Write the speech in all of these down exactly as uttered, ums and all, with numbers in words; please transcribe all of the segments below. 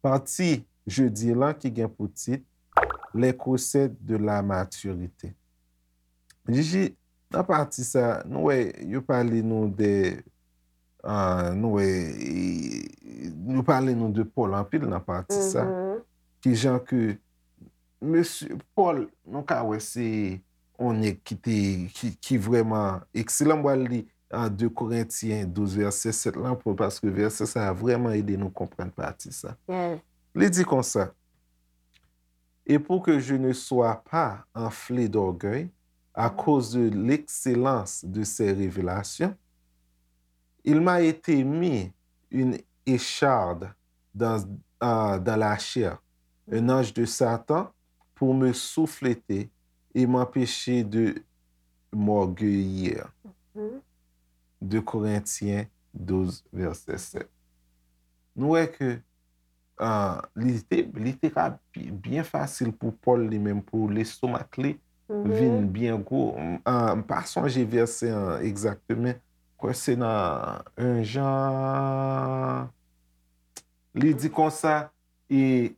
Pati jodi lan ki gen pou tit Les recettes de la maturité. Jiji, nan pati sa, nou wè, yo pale nou de, ah, nou wè, e, yo pale nou de Pòl anpil nan pati sa. Ki jan ke mesye Pòl, nou ka wè se yon nèg ki te, ki, ki vrèman ekselan. M pral li an de Korentyen douz vèsè sèt lan, pou, paske vèsè sa a vrèman ede nou konprann pati sa. Li di konsa, Et pour que je ne sois pas enflé d'orgueil à cause de l'excellence de ces révélations, il m'a été mis une écharde dans, euh, dans la chair, un ange de Satan, pour me souffleter et m'empêcher de m'orgueillir. De Korentyen douz, vèsè sèt. Nou wè ke ah, li te, li te ka bi- byen fasil pou Pòl li menm, pou lestomak li vin byen gwo. M, ah, m pa sonje vèsè an egzakteman. Kwè se nan en Jan. Li di konsa, e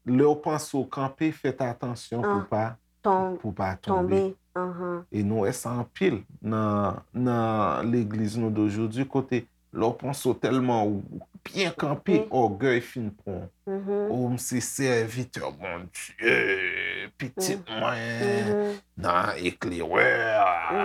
lè w panse w kanpe, fèt atansyon pou pa pou pa tonbe. E nou wè sa anpil nan, nan legliz nou de jodi, kote lè w panse w tèlman w byen kanpe, ògèy fin pran w. O, m se sèvitè Bondye, pitit mwen, nan eklerè,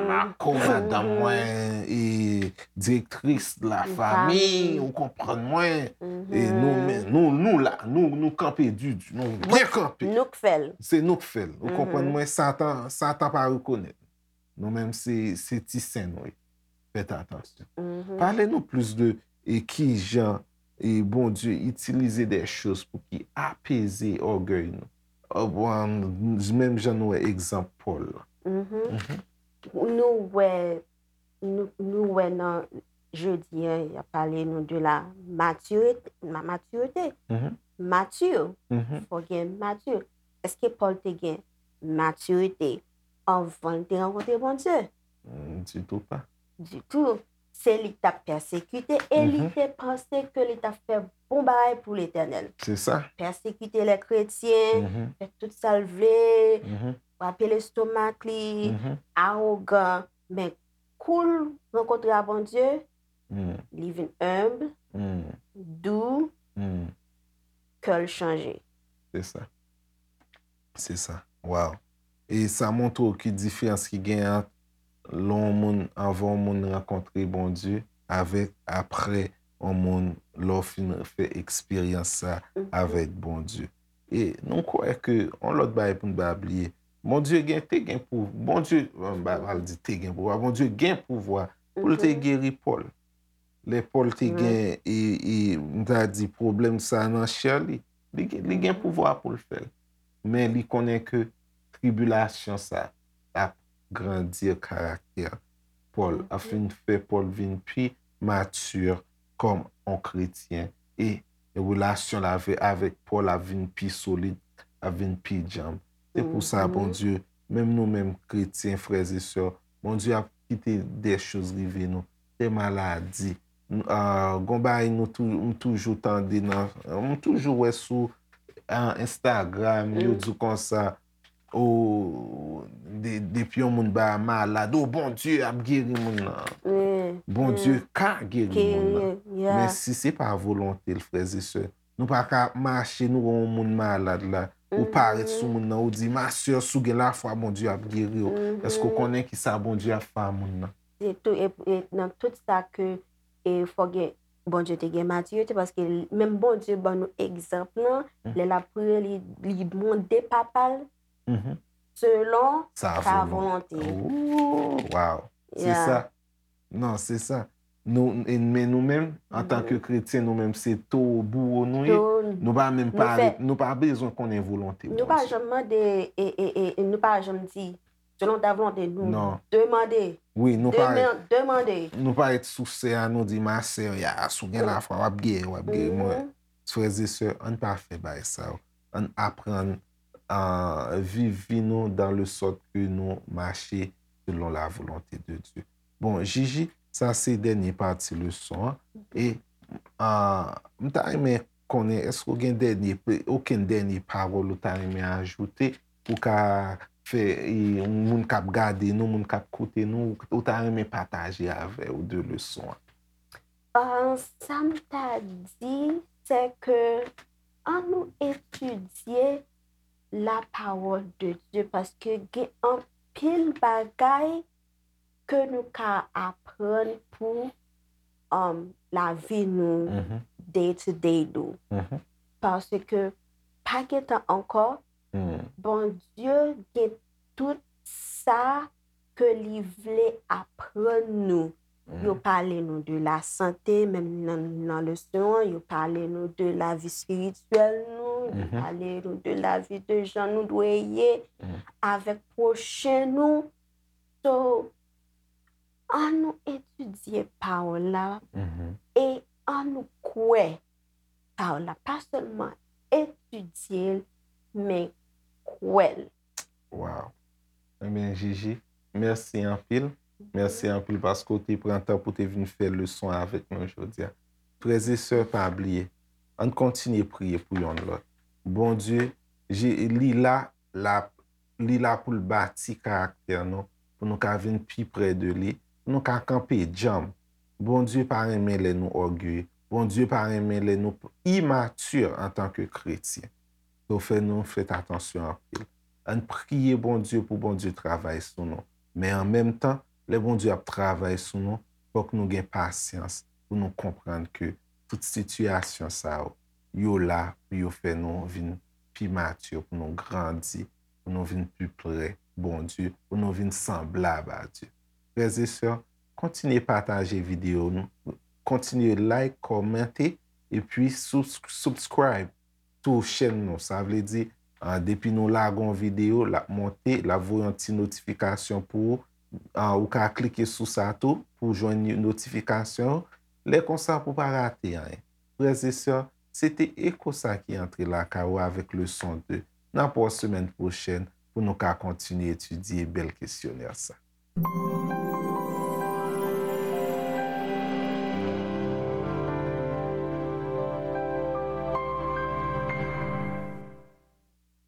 mako madanm mwen, e direktris de la famille, ou konprann mwen. E nou, men, nou, nou la, nou, nou kanpe didi, nou byen kanpe. Nou k fè l. Se nou k fè l. Ou konprann mwen? Satan, Satan pa rekonèt. Nou menm se, se ti sen nou ye. Fèt atansyon. Pale nou plis de e kijan e Bondye itilize de choz pou ki apeze ògèy nou. Menm jan nou wè egzanp Pòl la. Nou wè, nou, nou wè nan jodi an, y ap pale nou de la matirite, ma- matirite. Mati, fò gen mati. Èske Pòl te gen matirite anvan l te rankontre Bondye? Ditou pa. Ditou. Se li k t ap pèsekite e li te panse ke li t ap fè bon bagay pou Letènèl. Se sa. Pèsekite lè kretyen, fè tout sa l vle, frape lestomak li, awogan. Men kou l rankontre a Bondye, li vin enb, dou, kè l chanje. Se sa. Se sa. Wow. E sa montre w ki diferans ki gen ant lè yon moun, anvan yon moun rankontre Bondye, avèk aprè yon moun, lè w fin fè eksperyans sa avèk Bondye. E nou kwè ke yon lòt bagay pou n pa bliye. Bondye gen, te gen pou, Bondye, m pa pral di te gen pouvwa, Bondye gen pouvwa pou l te geri Pòl. Lè Pòl te gen, e, e, m ta di, pwoblèm sa nan chè li, li gen, li gen pouvwa pou l fè l. Men li konnen ke tribilasyon sa ap grandi karaktè Pòl, ap fin fè Pòl vin pi mati kòm yon kretyen. E relasyon l avè-, avèk Pòl ap vin pi solid, ap vin pi djanm. Se pou sa, Bondye, menm nou menm kretyen, frè e sè, Bondye ap kite de choz rive nou, de maladi. N-, ah, gon bagay nou tou-, m toujou tande nan, m toujou wè sou, ah, Instagram, yo di w konsa, o, de-, depi yon moun ba malad, o, Bondye ap geri moun nan. Bondye ka geri moun nan. Men si se pa volonte l, frè e sè, nou pa ka ap mache, nou wè yon moun malad la, ou parèt sou moun nan, ou di, ma sè, si w gen lafwa, Bondye ap geri w. Èske w konnen ki sa Bondye ap fè a moun nan? Se tou, e, e nan tout sa ke, e, fò gen, Bondye te gen matirite, paske l-, menm Bondye ban nou egzanp lan, lè l ap priye, li, li mande Papa l selon sa volonte. Oh, wow. Se sa. Non, se sa. Nou, e, men nou menm, antanke kretyen, nou menm se towo bouwo nou ye. Nou pa menm pa, nou pa bezwen konnen volonte Bondye. Nou pa janm mande, e, e, e, e nou pa janm di, selon ta volonte, nou demande. Wi, nou pa, nou pa ret sou sè a, nou di, ma sè, ya, si w gen lafwa, w ap geri, w ap geri. Mwen, frè e sè, ann pa fè bagay sa yo. Ann aprann euh, viv vi nou dans le sorte que nou mache selon la volonté de Dieu. Bon, Gigi, sa se dènye pati leson an. E euh, m ta renmen konnen, èske w gen dènye, okenn dènye pawòl ou ta renmen ajoute, ou ka fè, e, moun k ap gade nou, moun k ap koute nou, ou ta renmen pataje avè yo de leson an? Euh, sa m ta di, se ke an nou etidye la parole de Dieu, paske gen anpil bagay ke nou ka aprann pou um, lavi nou, day to day nou. Paske pa gen tan ankò, Bondye gen tout sa ke li vle aprann nou. Yo pale nou de la sante, menm nan, nan leson an, yo pale nou de lavi espirityèl nou, yo pale nou de lavi de jan nou dwe ye avèk pwochen nou. So, an nou etidye pawòl la e an nou kwè pawòl la. Pa sèlman etidye l, men kwè l. Wow. Ebyen, Gigi, mèsi anpil. Mèsi anpil paske w te pran tan pou te vin fè leson avèk nou jodi a. Frè e sè, pa bliye, ann kontinye priye pou yonn lòt. Bondye, li la, l ap, li la pou l bati karaktè nou, pou nou ka vin pi pre de li, pou nou ka kanpe djanm. Bondye pa renmen lè nou ògeye. Bondye pa renmen lè nou imati antanke kretyen. Donk, fè nou fèt atansyon anpil. Ann priye Bondye pou Bondye travay sou nou. Men an menm tan, lè Bondye ap travay sou nou, fòk nou gen pasyans pou nou konprann ke tout sitiyasyon sa yo, yo la pou yo fè nou vin pi matye, pou nou grandi, pou nou vin pi pre Bondye, pou nou vin sanblab a Dye. Frè e sè, kontinye pataje videyo nou, kontinye like, kòmante, epi subscribe tou chèn nou. Sa vle di, depi nou lage yon videyo, l ap monte, l ap voye yon ti notifikasyon pou ou. Ou ka klike sou sa tou pou jwenn notifikasyon yo. Lè konsa pou pa rate anyen. Frè e sè, se te Eko sa ki antre lakay ou avèk leson de. N ap wè w semèn pwochèn pou nou ka kontinye etidye bèl kesyonè sa.